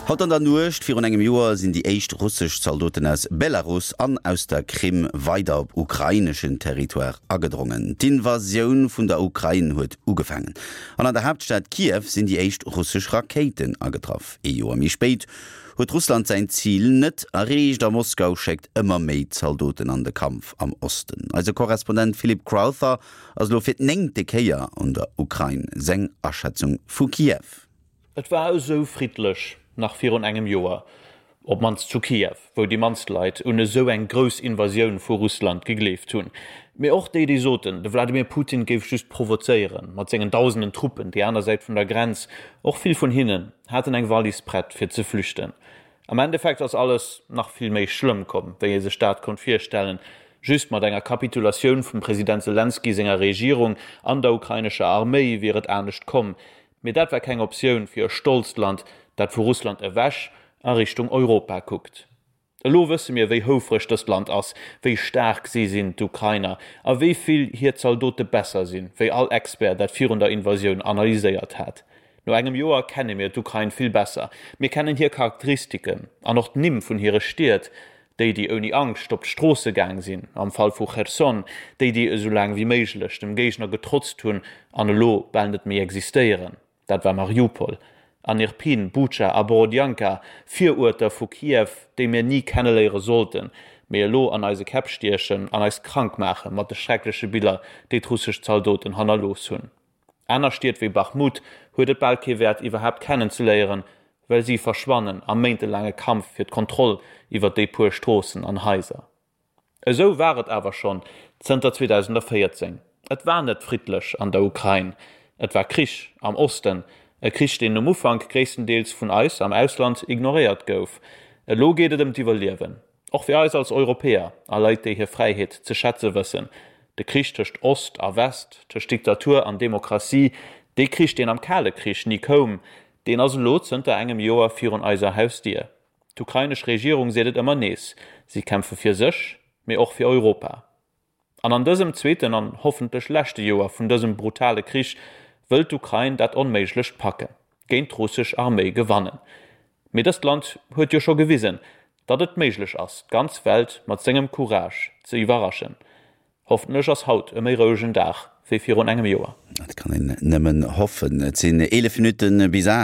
Haut an der Nuecht virun engem Joer sinn déi éischt russesch Zaldoten aus Belarus an aus der Krim weider op ukraineschen Territoire agedrongen. D'Invasioun vun der Ukrain huet ugefaangen an an der Haaptstad Kiew sinn déi éischt russesch Rakéiten agetraff. Ee Joer méi spéit huet Russland säin Zil net erreecht a Moskau schéckt ëmmer méi Zaldoten an de Kampf am Osten. Eise Korrespondent Philip Crowther ass elo fir d'néngte Kéier an der Ukrain. Seng Aschätzung vu Kiew. Et war esou friddlech nach virun engem Joer, op d'mannst zu Kiew, wou déi mannst Leit un esou eng grouss Invasioun vu Russland gegleeft hunn. Mee och déi, déi soten, de Wladimir Putin géif just provozéieren mat sengen dausenden Truppen déi aner Säit vun der Grenz, och vill vun hinnen haten eng Wallis prett fir ze flüchten. Am Endeffekt ass alles nach vill méi schlëmm komm, wéi ee sech dat konnt virstellen. Just mat enger Kapitulatioun vum President Selenskyj senger Regierung an der ukrainescher Arméi wier et anescht komm. Mee dat war keng Optioun fir e stolzt Land, dat vu Russland ewech a Richtung Europa kuckt. Elo wësse mir, wéi houfreg dëst Land ass, wéi staark si sinn, d'Ukrainer, a wéi vill hir Zaldote besser sinn, wéi all Expert dat virun der Invasioun analyséiert hat. No engem Joer kenne mir d'Ukrain vill besser. Mir kennen hir Charakteristiken an och d'Nimm vun hire Stied, déi, déi ouni Angscht op d'Stroosse gaang sinn, am Fall vu Cherson, déi, déi esou laang wéi méiglech dem Géigner getrotzt hunn an elo bal net méi existéieren, dat war Mariupol, an Irpin, Bucha a Borodjanka, Viruerter vu Kiew, déi mir ni kenneléiere sollten, mee elo an eise Käpp stiechen an eis krank maache mat de schreckleche Biller, déi d'russesch Zaldoten hannerlooss hunn. Aner Stied wéi Bachmut huet et bal kee Wäert iwwerhaapt kennenzeléieren, well si verschwannen am méintelaange Kampf fir d'Kontroll iwwer déi puer Stroossen an Haiser. Esou war et awer schonn zënter 2014. Et war net friddlech an der Ukrain. Et war Krich am Osten, e Krich deen um Ufank gréisstendeels vun eis am Ausland ignoréiert gouf. Elo geet et ëm d'Iwwerliewen. Och fir eis als Europäer a Leit, déi hir Fräiheet ze schätze wëssen, de Krich tëscht Ost a West, tëscht Diktatur an Demokratie, dee Krich, deen am Kale Krich ni koum, deen ass elo zënter engem Joer virun eiser Hausdier. D'ukrainesch Regierung seet et ëmmer nees, si kämpfe fir sech, mee och fir Europa. An an dësem zweeten an hoffentlech leschte Joer vun dësem brutale Krich wëllt d'Ukrain dat Onméiglecht packen, géint d'russesch Arméi gewannen. Mee dëst Land huet jo scho gewisen, datt et méiglech ass, d'ganz Welt mat sengem Courage ze iwwerraschen. Hoffentlech ass haut e méi rouegen Dag wéi virun engem Joer. Dat kann een nëmmen hoffen. Et sinn 11 Minutte bis 8.